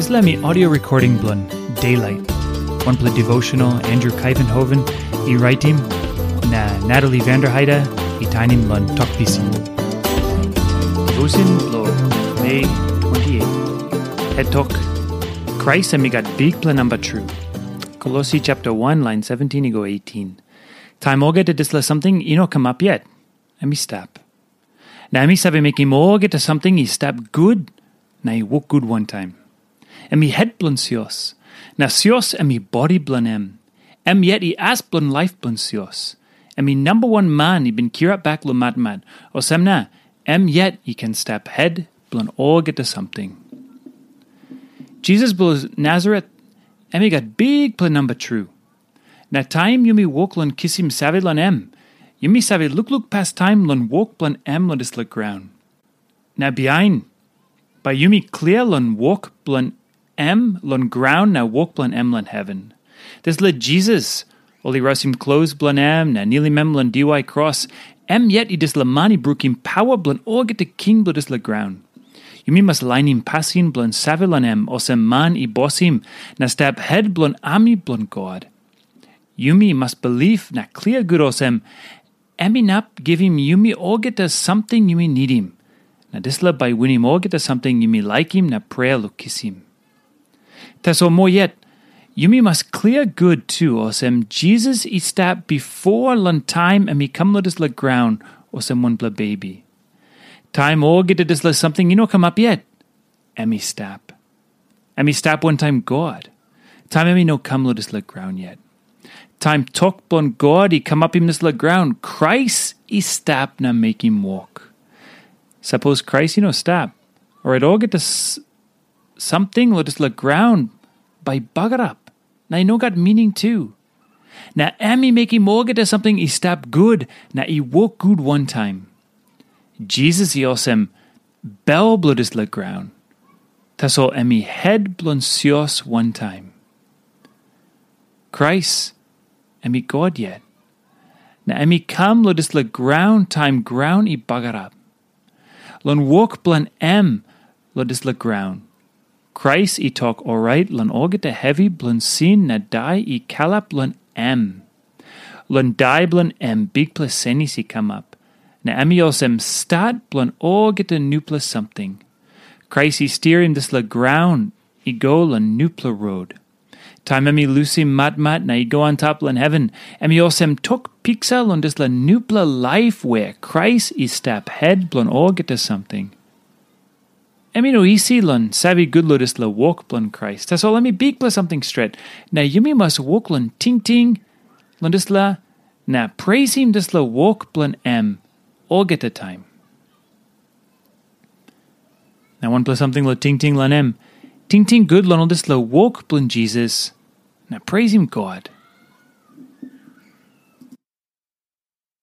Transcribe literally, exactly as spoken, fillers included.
Dispela mi audio recording bilong Daylight, wanpela devotional Andrew Kaivenhoven i raitim, na Natalie Vanderheide i tainim long Tok Pisin. Devotion bilong Mei twenty-eight. Het tok, Krais em i gat bikpela namba tru. Kolosi chapter one, line seventeen i go eighteen. Taim olgeta dispela samting i no kamap yet, em i stap. Na em i save mekim olgeta samting i stap gut na i wok gut wantaim. Em i het bilong sios, na sios em i bodi bilong em. Em yet i as bilong laip bilong sios. Em i namba wan man i bin kirap bek long matmat, olsem na em yet i ken stap het bilong olgeta samting. Jisas bilong Nasaret, em i gat bikpela namba tru. Na taim yumi wok long kisim save long em, yumi save lukluk pastaim long wok bilong em long dispela graun. Na bihain, bai yumi klia long wok bilong em long graun na wok bilong em long heven. Dispela Jisas, ol i rausim klos bilong em na nilim em long diwai kros, em yet i dispela man i brukim paua bilong olgeta king bilong dispela graun. Yumi mas lainim pasin bilong save long em olsem man i bosim na stap het bilong ami bilong God. Yumi mas bilip na klia gut olsem, em inap givim yumi olgeta samting yumi nidim, na dispela bai winim olgeta samting yumi laikim na prea long kisim. Tasol moa yet, yumi mas klia gut tu olsem Jisas i stap bipo long taim em i kam long dispela graun olsem wanpela bebi. Taim olgeta dispela samting i no kamap yet, em i stap. Em i stap wantaim God, taim em i no kam long dispela graun yet. Taim tok bilong God i kamapim dispela graun, Krais i stap na mekim wok. Sapos Krais i no stap, orait olgeta s- samting long dispela graun bai bagarap, na i no gat mining tu. Na em i mekim olgeta samting i stap gut na i wok gut wantaim. Jisas i olsem bel bilong dispela graun, tasol em i het bilong sios wantaim. Krais, em i God yet, na em i kam long dispela graun taim graun i bagarap. Long wok bilong em long dispela graun, Krais i tok orait long olgeta hevi bilong sin na dai i kalap long em. Long dai bilong em bikpela senis i kamap, na em i olsem stat bilong olgeta nupela samting. Krais i stirim dispela graun i go long nupela rot. Taim em i lusim matmat na i go antap long heven, em i olsem tok piksa long dispela nupela laip wea Krais i stap het bilong olgeta samting. Em i no isi long save gut long dispela wok bilong Krais, tasol em i bikpela samting stret, na yumi mas wok long tingting long dispela na preisim dispela wok bilong em olgeta taim. Na wanpela samting long tingting long em, tingting gut long ol dispela wok bilong Jisas, na preisim God.